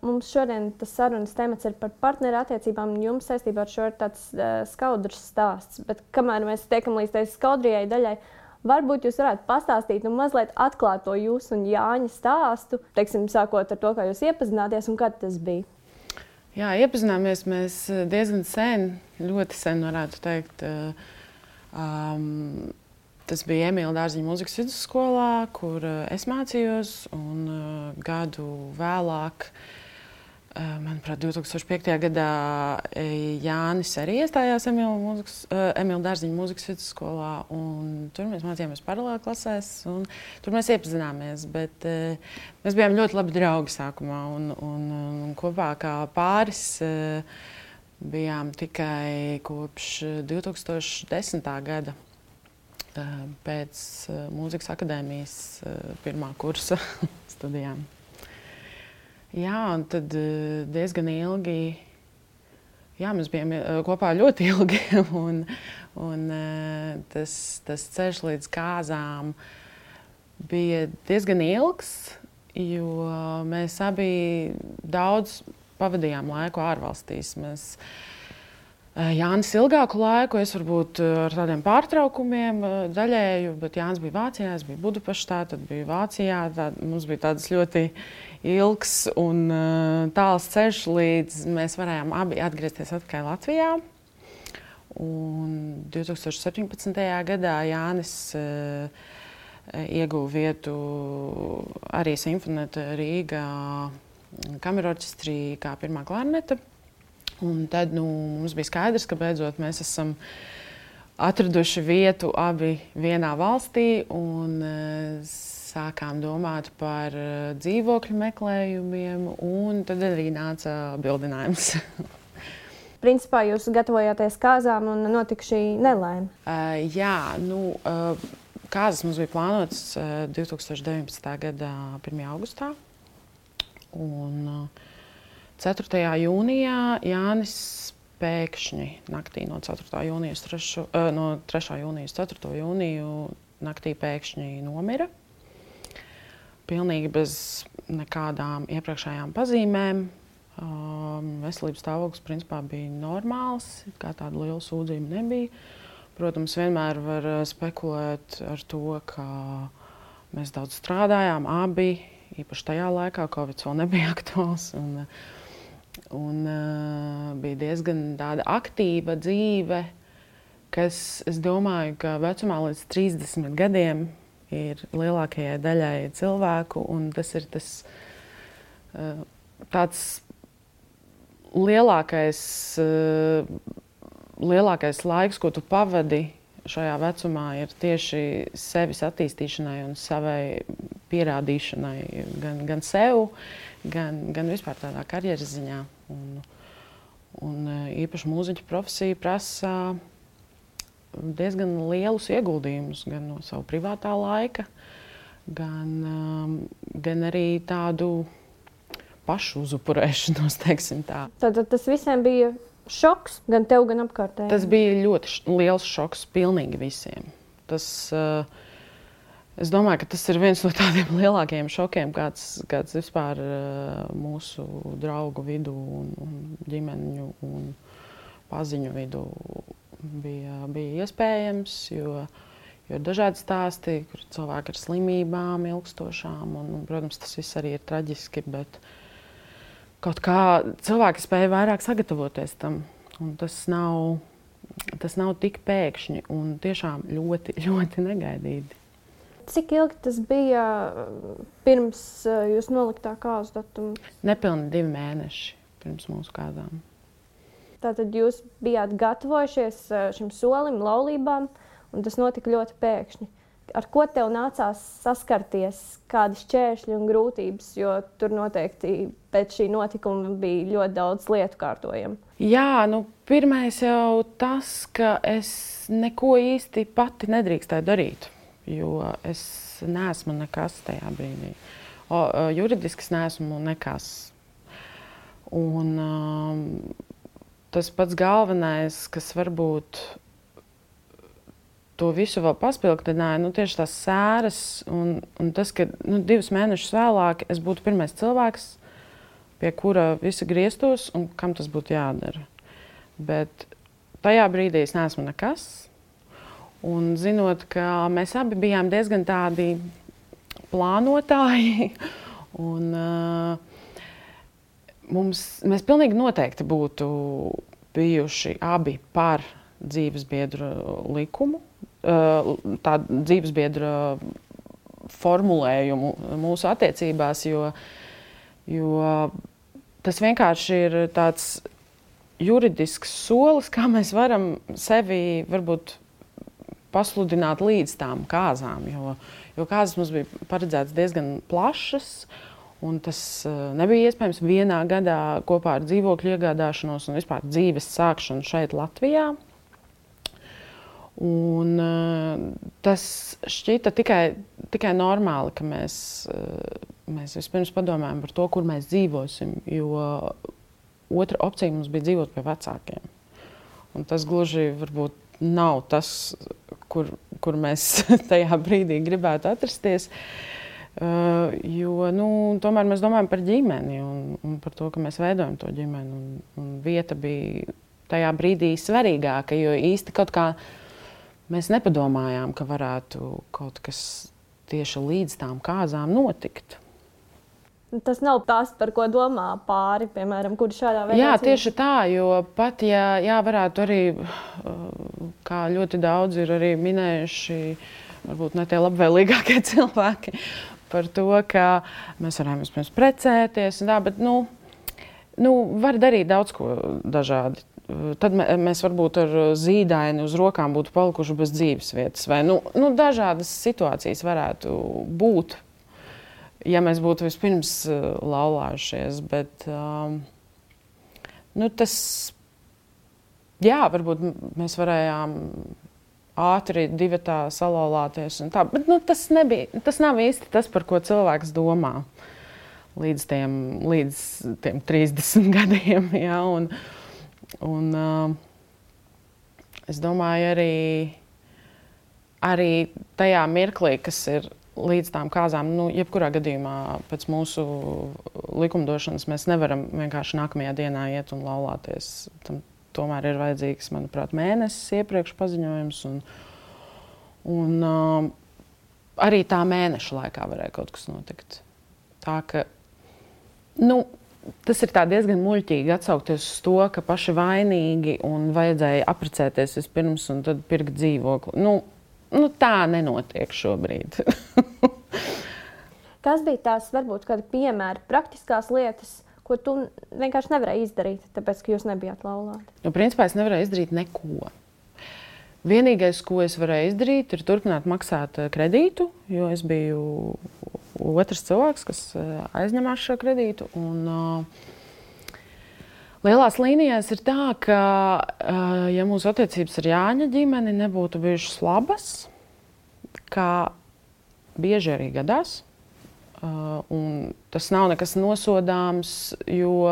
mums šodien tas sarunas temats ir par partneru attiecībām, un jums saistībā ar šo ir tāds skaudrs stāsts. Bet kamēr mēs tiekam līdz tai skaudrijai daļai, varbūt jūs varētu pastāstīt un mazliet atklāt to jūsu un Jāņa stāstu, teiksim, sākot ar to, kā jūs iepazināties un kad tas bija. Jā, iepazināmies mēs diezgan sen, ļoti sen varētu teikt. Tas bija Emīla Dārziņa mūzikas vidusskolā, kur es mācījos, un gadu vēlāk, manuprāt, 2005. Gadā Jānis arī iestājās Emīla Dārziņa mūzikas vidusskolā, un tur mēs mācījāmies paralēli klasēs, un tur mēs iepazināmies, bet mēs bijām ļoti labi draugi sākumā, un kopā kā pāris bijām tikai kopš 2010. Gada. Pēc mūzikas akadēmijas pirmā kursa studijām. Jā, un tad diezgan ilgi, jā, mēs bijām kopā ļoti ilgi, un tas ceļš līdz kāzām bija diezgan ilgs, jo mēs abi daudz pavadījām laiku ārvalstīs. Jānis ilgāku laiku, es varbūt ar tādiem pārtraukumiem daļēju, bet Jānis bija Vācijā, es biju Budapeštā, tad biju Vācijā. Mums bija tāds ļoti ilgs un tāls ceļš, līdz mēs varējām abi atgriezties atpakaļ Latvijā. Un 2017. Gadā Jānis ieguva vietu arī Simfonēta Rīgā kamerorķestrī kā pirmā klarneta. Un tad mums bija skaidrs, ka beidzot mēs esam atraduši vietu abi vienā valstī un sākām domāt par dzīvokļu meklējumiem, un tad arī nāca bildinājums. Principā jūs gatavojāties kāzām un notika šī nelaime? Jā, kāzas mums bija plānotas 2019. Gada 1. augustā. Un 4. jūnijā Jānis pēkšņi naktī no 4. jūnija uz 3. jūnija uz 4. jūniju naktī pēkšņi nomira. Pilnīgi bez nekādām iepriekšējām pazīmēm. Veselības stāvoklis principā bija normāls, kā tāda liela sūdzība nebija. Protams, vienmēr var spekulēt ar to, ka mēs daudz strādājām, abi, īpaši tajā laikā, Covid vēl nebija aktuāls. Un bija diezgan tāda aktīva dzīve, kas, es domāju, ka vecumā līdz 30 gadiem ir lielākajai daļai cilvēku, un tas ir tāds lielākais laiks, ko tu pavadi šajā vecumā, ir tieši sevis attīstīšanai un savai pierādīšanai gan sev, gan vispār tādā karjeras ziņā. Un īpaši mūziķa profesija prasa diezgan lielus ieguldījumus gan no savu privātā laika, gan arī tādu pašu uzupurēšanos, teiksim tā. Tātad tas visiem bija šoks, gan tev, gan apkārtējiem? Tas bija ļoti liels šoks pilnīgi visiem. Es domāju, ka tas ir viens no tādiem lielākajiem šokiem, kāds vispār mūsu draugu vidū un ģimeņu un paziņu vidū bija iespējams, jo ir dažādi stāsti, kur cilvēki ar slimībām ilgstošām, un, protams, tas viss arī ir traģiski, bet kaut kā cilvēki spēja vairāk sagatavoties tam, un tas nav tik pēkšņi un tiešām ļoti, ļoti negaidīti. Cik ilgi tas bija pirms jūs noliktā kāzu datumu? Nepilni 2 mēneši pirms mūsu kāzām. Tātad jūs bijāt gatavojušies šim solim, laulībām, un tas notika ļoti pēkšņi. Ar ko tev nācās saskarties, kādi šķēršļi un grūtības, jo tur noteikti pēc šī notikuma bija ļoti daudz lietu kārtojam? Jā, pirmais jau tas, ka es neko īsti pati nedrīkstēju darīt. Jo es neesmu nekas tajā brīdī. Juridiski es neesmu nekas. Un tas pats galvenais, kas varbūt to visu vēl paspilgtināja, tieši tās sēras un tas, ka 2 mēnešus vēlāk es būtu pirmais cilvēks, pie kura visi grieztos un kam tas būtu jādara. Bet tajā brīdī es neesmu nekas. Un zinot, ka mēs abi bijām diezgan tādi plānotāji, un mēs pilnīgi noteikti būtu bijuši abi par dzīvesbiedru likumu, tā dzīvesbiedra formulējumu mūsu attiecībās, jo tas vienkārši ir tāds juridisks solis, kā mēs varam sevi varbūt pasludināt līdz tām kāzām, jo kāzas mums bija paredzētas diezgan plašas, un tas nebija iespējams vienā gadā kopā ar dzīvokļu iegādāšanos un vispār dzīves sākšanu šeit Latvijā. Un tas šķita tikai normāli, ka mēs vispirms padomājam par to, kur mēs dzīvosim, jo otra opcija mums bija dzīvot pie vecākiem. Un tas gluži varbūt nav tas, kur mēs tajā brīdī gribētu atrasties, jo tomēr mēs domājam par ģimeni un par to, ka mēs veidojam to ģimeni. Un vieta bija tajā brīdī svarīgāka, jo īsti kaut kā mēs nepadomājām, ka varētu kaut kas tieši līdz tām kāzām notikt. Tas nav tas, par ko domā pāri, piemēram, kuri šādā veidā. Jā, tieši tā, jo pat, ja varētu arī, kā ļoti daudz ir arī minējuši, varbūt ne tie labvēlīgākie cilvēki, par to, ka mēs varējām vispirms precēties, bet var darīt daudz ko dažādi. Tad mēs varbūt ar zīdaini uz rokām būtu palikuši bez dzīves vietas. Vai dažādas situācijas varētu būt, ja mēs būtu vispirms laulājušies. Bet varbūt mēs varējām ātri divatā salauzties. Tas nav īsti tas, par ko cilvēks domā līdz tiem 30 gadiem. Ja, un es domāju, arī tajā mirklī, kas ir līdz tām kāzām, jebkurā gadījumā pēc mūsu likumdošanas mēs nevaram vienkārši nākamajā dienā iet un laulāties. Tam tomēr ir vajadzīgs, manuprāt, mēnesis iepriekš paziņojums. Un arī tā mēneša laikā varēja kaut kas notikt. Tā ka, tas ir diezgan muļķīgi atsaukties uz to, ka paši vainīgi un vajadzēja apprecēties vispirms un tad pirkt dzīvokli. Tā nenotiek šobrīd. Kas bija tās, varbūt, kādi piemēri, praktiskās lietas, ko tu vienkārši nevarēji izdarīt, tāpēc, ka jūs nebijāt laulāti? Principā es nevarēju izdarīt neko. Vienīgais, ko es varēju izdarīt, ir turpināt maksāt kredītu, jo es biju otrs cilvēks, kas aizņemās šo kredītu. Lielās līnijās ir tā, ka, ja mūsu attiecības ar Jāņa ģimeni nebūtu bijušas labas, kā bieži arī gadās, un tas nav nekas nosodāms, jo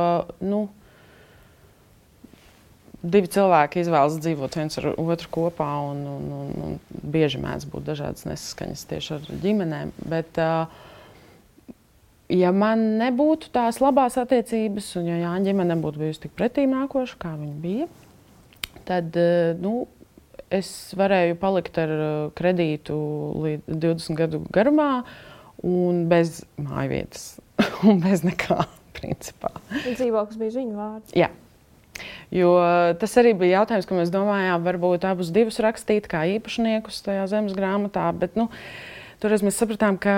divi cilvēki izvēlas dzīvot viens ar otru kopā, un bieži mēdz būt dažādas nesaskaņas tieši ar ģimenēm. Bet, ja man nebūtu tās labās attiecības, un ja Jāņa ģimene nebūtu bijusi tik pretīm nākoša, kā viņa bija, tad es varēju palikt ar kredītu līdz 20 gadu garumā un bez mājvietas un bez nekā, principā. Dzīvoklis bija viņu vārds. Jā. Jo tas arī bija jautājums, ka mēs domājām, varbūt abus divus rakstīt kā īpašniekus tajā zemes grāmatā, bet toreiz mēs sapratām, ka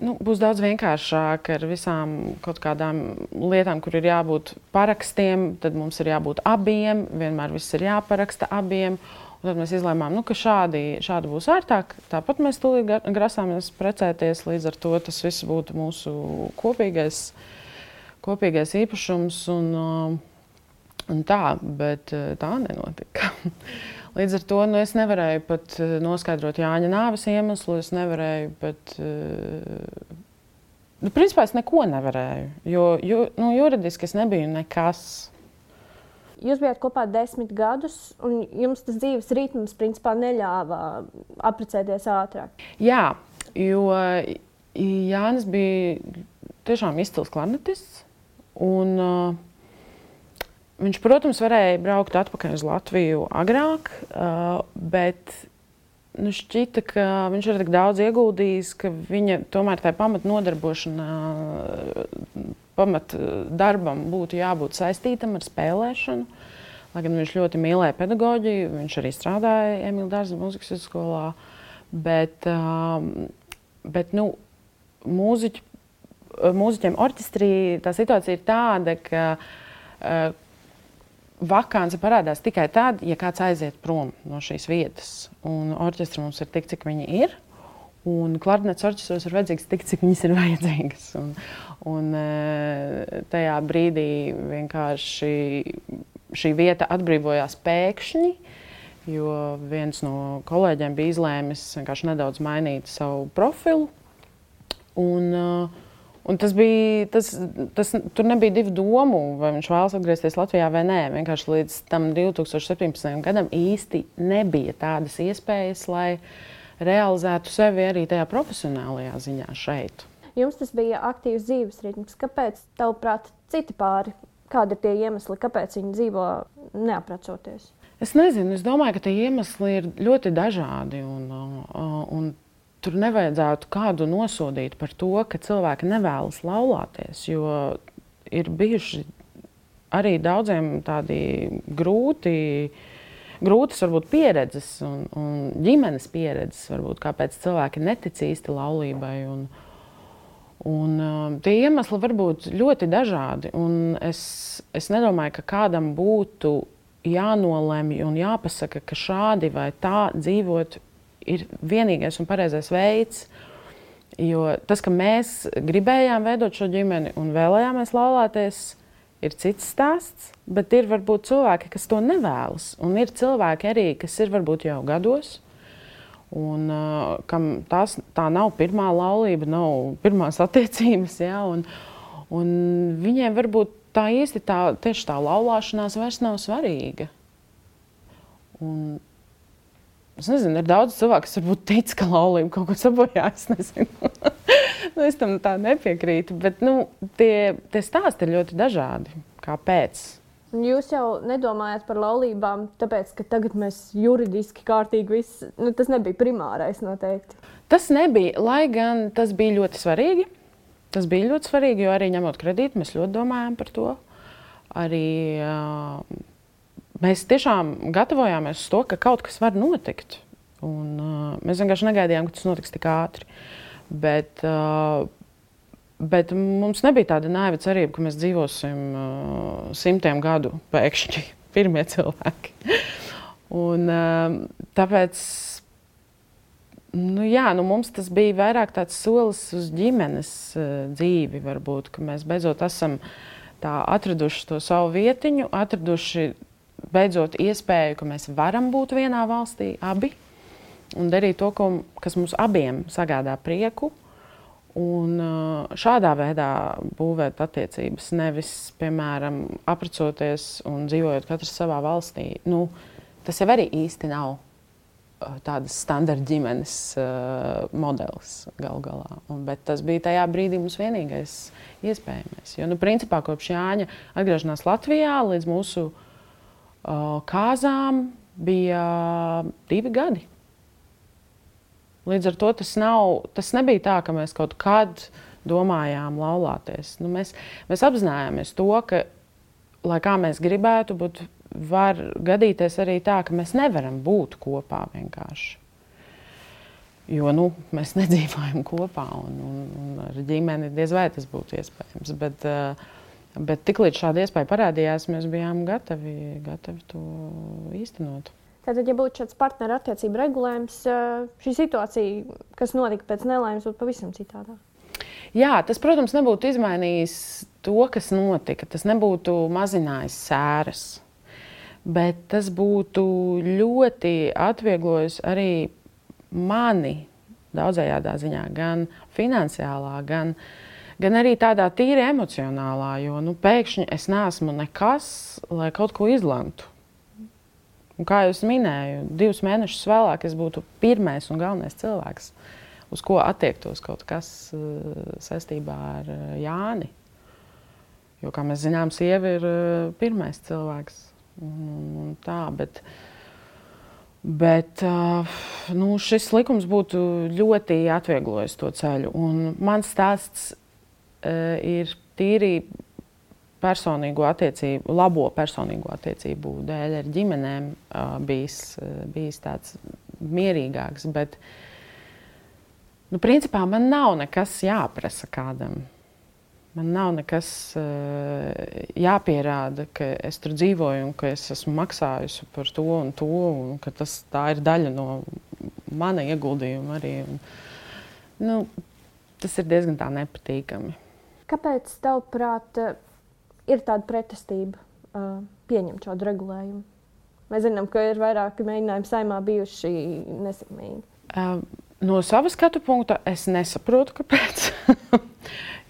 būs daudz vienkāršāk ar visām kaut kādām lietām, kur ir jābūt parakstiem, tad mums ir jābūt abiem, vienmēr viss ir jāparaksta abiem. Un tad mēs izlēmām, ka šādi būs ērtāk. Tāpat mēs tūlīt grasāmies precēties, līdz ar to tas viss būtu mūsu kopīgais īpašums. Un tā, bet tā nenotika. Līdz ar to es nevarēju pat noskaidrot Jāņa nāves iemeslu, es nevarēju pat... principā es neko nevarēju, jo juridiski es nebiju nekas. Jūs bijāt kopā 10 gadus, un jums tas dzīves ritms principā neļāva apprecēties ātrāk. Jā, jo Jānis bija tiešām izcils klarnetists. Un, viņš, protams, varēja braukt atpakaļ uz Latviju agrāk, bet šķita, ka viņš ir tik daudz ieguldījis, ka viņa tomēr tā pamatnodarbošana, pamatdarbam būtu jābūt saistītam ar spēlēšanu. Lai gan viņš ļoti mīlēja pedagoģiju, viņš arī strādāja Emīla Dārza mūzikas vidusskolā, bet mūziķiem orķestrī tā situācija ir tāda, ka vakance parādās tikai tad, ja kāds aiziet prom no šīs vietas. Un orķestra mums ir tik, cik viņi ir. Un klarnets orķestros ir vajadzīgs tik, cik viņas ir vajadzīgas. Un tajā brīdī vienkārši šī vieta atbrīvojās pēkšņi, jo viens no kolēģiem bija izlēmis vienkārši nedaudz mainīt savu profilu. Un tur nebija divu domu, vai viņš vēlas atgriezties Latvijā vai nē. Vienkārši līdz tam 2017. gadam īsti nebija tādas iespējas, lai realizētu sevi arī tajā profesionālajā ziņā šeit. Jums tas bija aktīvs dzīves ritms. Kāpēc, tavuprāt, citi pāri? Kādi ir tie iemesli, kāpēc viņi dzīvo neaprecoties? Es nezinu. Es domāju, ka tie iemesli ir ļoti dažādi. Un tur nevajadzētu kādu nosodīt par to, ka cilvēki nevēlas laulāties, jo ir bijuši arī daudziem tādi grūtas varbūt pieredzes un ģimenes pieredzes, varbūt, kāpēc cilvēki netic īsti laulībai. Tie iemesli var būt ļoti dažādi. Un es nedomāju, ka kādam būtu jānolemj un jāpasaka, ka šādi vai tā dzīvot ir vienīgais un pareizais veids. Jo tas, ka mēs gribējām veidot šo ģimeni un vēlējāmies laulāties, ir cits stāsts. Bet ir varbūt cilvēki, kas to nevēlas. Un ir cilvēki arī, kas ir varbūt jau gados. Un kam tā nav pirmā laulība, nav pirmās attiecības. Ja? Un viņiem varbūt tā īsti tieši tā laulāšanās vairs nav svarīga. Es nezinu, ir daudz cilvēku, kas varbūt tic, ka laulība kaut ko sabojā. Es nezinu. Es tam tā nepiekrītu. Bet tie stāsti ir ļoti dažādi. Kāpēc? Jūs jau nedomājat par laulībām, tāpēc, ka tagad mēs juridiski kārtīgi viss. Tas nebija primārais noteikti. Tas nebija, lai gan tas bija ļoti svarīgi. Tas bija ļoti svarīgi, jo arī ņemot kredītu, mēs ļoti domājām par to. Arī mēs tiešām gatavojāmies uz to, ka kaut kas var notikt. Un, mēs vienkārši negaidījām, ka tas notiks tik ātri. Bet mums nebija tāda naiva cerība, ka mēs dzīvosim 100 gadu pēkšņi, pirmie cilvēki. Un, tāpēc mums tas bija vairāk tāds solis uz ģimenes dzīvi, varbūt, ka mēs beidzot esam atraduši to savu vietiņu, atraduši beidzot iespēju, ka mēs varam būt vienā valstī abi un darīt to, kas mums abiem sagādā prieku. Un šādā veidā būvēt attiecības, nevis, piemēram, aprecoties un dzīvojot katrs savā valstī. Tas jau arī īsti nav tādas standarta ģimenes modelis galu galā. Bet tas bija tajā brīdī mums vienīgais iespējamais. Jo, principā, kopš Jāņa atgriešanās Latvijā līdz mūsu kāzām bija 2 gadi. Līdz ar to tas nebija tā, ka mēs kaut kad domājām laulāties. Mēs apzinājāmies to, ka, lai kā mēs gribētu, var gadīties arī tā, ka mēs nevaram būt kopā vienkārši. Jo mēs nedzīvojam kopā un ar ģimeni diez vai tas būtu iespējams. Bet tiklīdz šāda iespēja parādījās, mēs bijām gatavi to īstenot. Tātad, ja būtu šāds partneru attiecību regulējums, šī situācija, kas notika pēc nelaimes, būtu pavisam citādā? Jā, tas, protams, nebūtu izmainījis to, kas notika. Tas nebūtu mazinājis sēras. Bet tas būtu ļoti atvieglojis arī mani daudzējādā ziņā, gan finansiālā, gan arī tādā tīri emocionālā, jo pēkšņi es neesmu nekas, lai kaut ko izlemtu. Un kā jau minēju, 2 mēnešus vēlāk es būtu pirmais un galvenais cilvēks, uz ko attiektos kaut kas saistībā ar Jāni. Jo, kā mēs zinām, sieva ir pirmais cilvēks. Un tā, bet nu, šis likums būtu ļoti atvieglojis to ceļu. Un mans stāsts ir tīri labo personīgo attiecību dēļ ar ģimenēm bijis tāds mierīgāks. Bet, nu, principā man nav nekas jāprasa kādam. Man nav nekas jāpierāda, ka es tur dzīvoju un ka es esmu maksājusi par to un ka tā ir daļa no mana ieguldījuma arī. Nu, tas ir diezgan tā nepatīkami. Kāpēc, tavuprāt, ir tāda pretestība pieņemt šādu regulējumu? Mēs zinām, ka ir vairāki mēģinājumi Saeimā bijuši nesekmīgi. No savas skatu punkta es nesaprotu, kāpēc.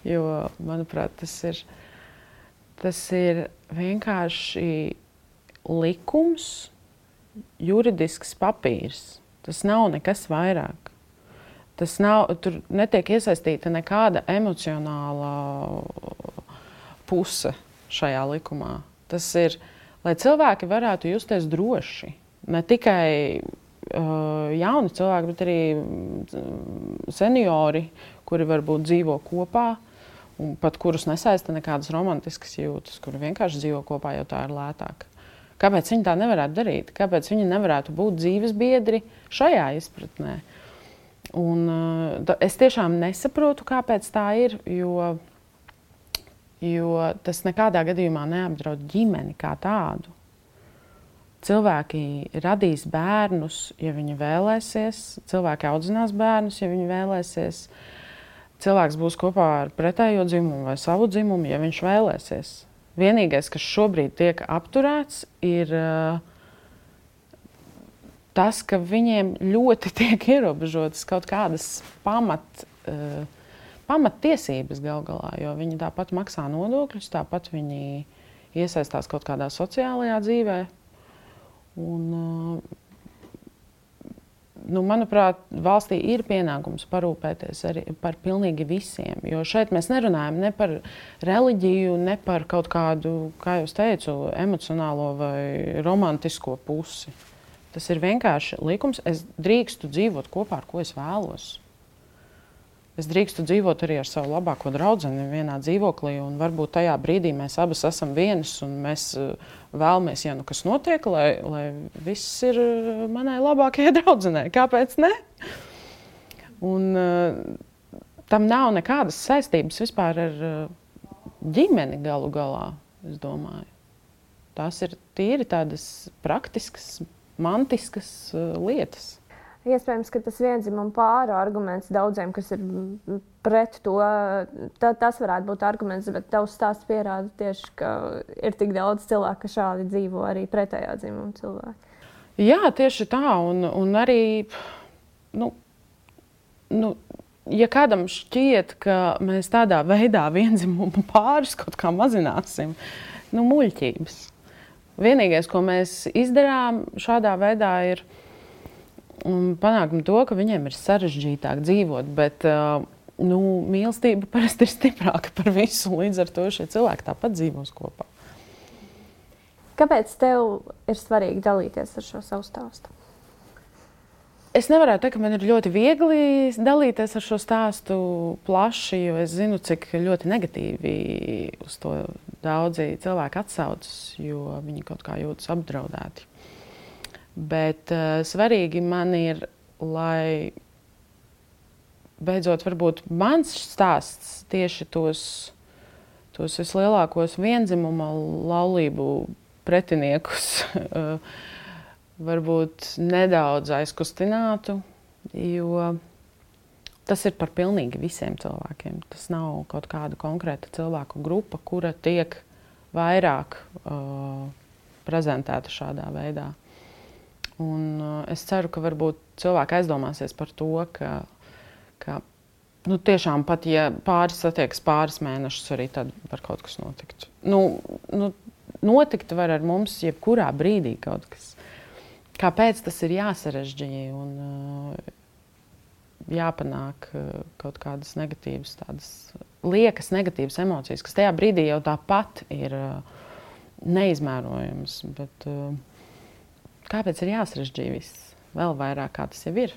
Jo, manuprāt, tas ir vienkārši likums, juridisks papīrs. Tas nav nekas vairāk. Tur netiek iesaistīta nekāda emocionāla puse šajā likumā. Tas ir, lai cilvēki varētu justies droši. Ne tikai jauni cilvēki, bet arī seniori, kuri varbūt dzīvo kopā, un pat kurus nesaista nekādas romantiskas jūtas, kuri vienkārši dzīvo kopā, jo tā ir lētāk. Kāpēc viņi tā nevarētu darīt? Kāpēc viņi nevarētu būt dzīves biedri šajā izpratnē? Un es tiešām nesaprotu, kāpēc tā ir, jo tas nekādā gadījumā neapdraud ģimeni kā tādu. Cilvēki radīs bērnus, ja viņi vēlēsies. Cilvēki audzinās bērnus, ja viņi vēlēsies. Cilvēks būs kopā ar pretējo dzimumu vai savu dzimumu, ja viņš vēlēsies. Vienīgais, kas šobrīd tiek apturēts, ir tas, ka viņiem ļoti tiek ierobežotas kaut kādas pamattiesības gal galā, jo viņi tāpat maksā nodokļus, tāpat viņi iesaistās kaut kādā sociālajā dzīvē. Un, manuprāt, valstī ir pienākums parūpēties arī par pilnīgi visiem. Jo šeit mēs nerunājam ne par reliģiju, ne par kaut kādu, kā jau teicu, emocionālo vai romantisko pusi. Tas ir vienkārši likums. Es drīkstu dzīvot kopā, ar ko es vēlos. Es drīkstu dzīvot arī ar savu labāko draudzeni vienā dzīvoklī, un varbūt tajā brīdī mēs abas esam vienas, un mēs vēlamies, ja nu kas notiek, lai viss ir manai labākajai draudzenei. Kāpēc ne? Un tam nav nekādas saistības vispār ar ģimeni galu galā, es domāju. Tās ir tīri tādas praktiskas, mantiskas lietas. Iespējams, ka tas vienzimuma pāru arguments daudziem, kas ir pret to, tas varētu būt arguments, bet tavs stāsts pierāda tieši, ka ir tik daudz cilvēku, ka šādi dzīvo arī pretējā dzimuma cilvēki. Jā, tieši tā, un arī, ja kādam šķiet, ka mēs tādā veidā vienzimuma pārus kaut kā mazināsim, muļķības. Vienīgais, ko mēs izdarām šādā veidā, ir un panākam to, ka viņiem ir sarežģītāk dzīvot, bet mīlestība parasti ir stiprāka par visu, līdz ar to šie cilvēki tāpat dzīvos kopā. Kāpēc tev ir svarīgi dalīties ar šo savu stāstu? Es nevarētu teikt, ka man ir ļoti viegli dalīties ar šo stāstu plaši, jo es zinu, cik ļoti negatīvi uz to daudzi cilvēki atsaucas, jo viņi kaut kā jūtas apdraudēti. Bet svarīgi man ir, lai beidzot varbūt mans stāsts tieši tos vislielākos vienzimuma laulību pretiniekus varbūt nedaudz aizkustinātu, jo tas ir par pilnīgi visiem cilvēkiem. Tas nav kaut kāda konkrēta cilvēku grupa, kura tiek vairāk prezentēta šādā veidā. Un es ceru, ka varbūt cilvēki aizdomāsies par to, ka tiešām pat, ja pāris satiekas pāris mēnešus, arī tad var kaut kas notikt. Notikt var ar mums jebkurā brīdī kaut kas. Kāpēc tas ir jāsarežģīja un jāpanāk kaut kādas negatīvas tādas liekas negatīvas emocijas, kas tajā brīdī jau tāpat ir neizmērojams. Bet kāpēc ir jāsarežģīja viss? Vēl vairāk, kā tas jau ir.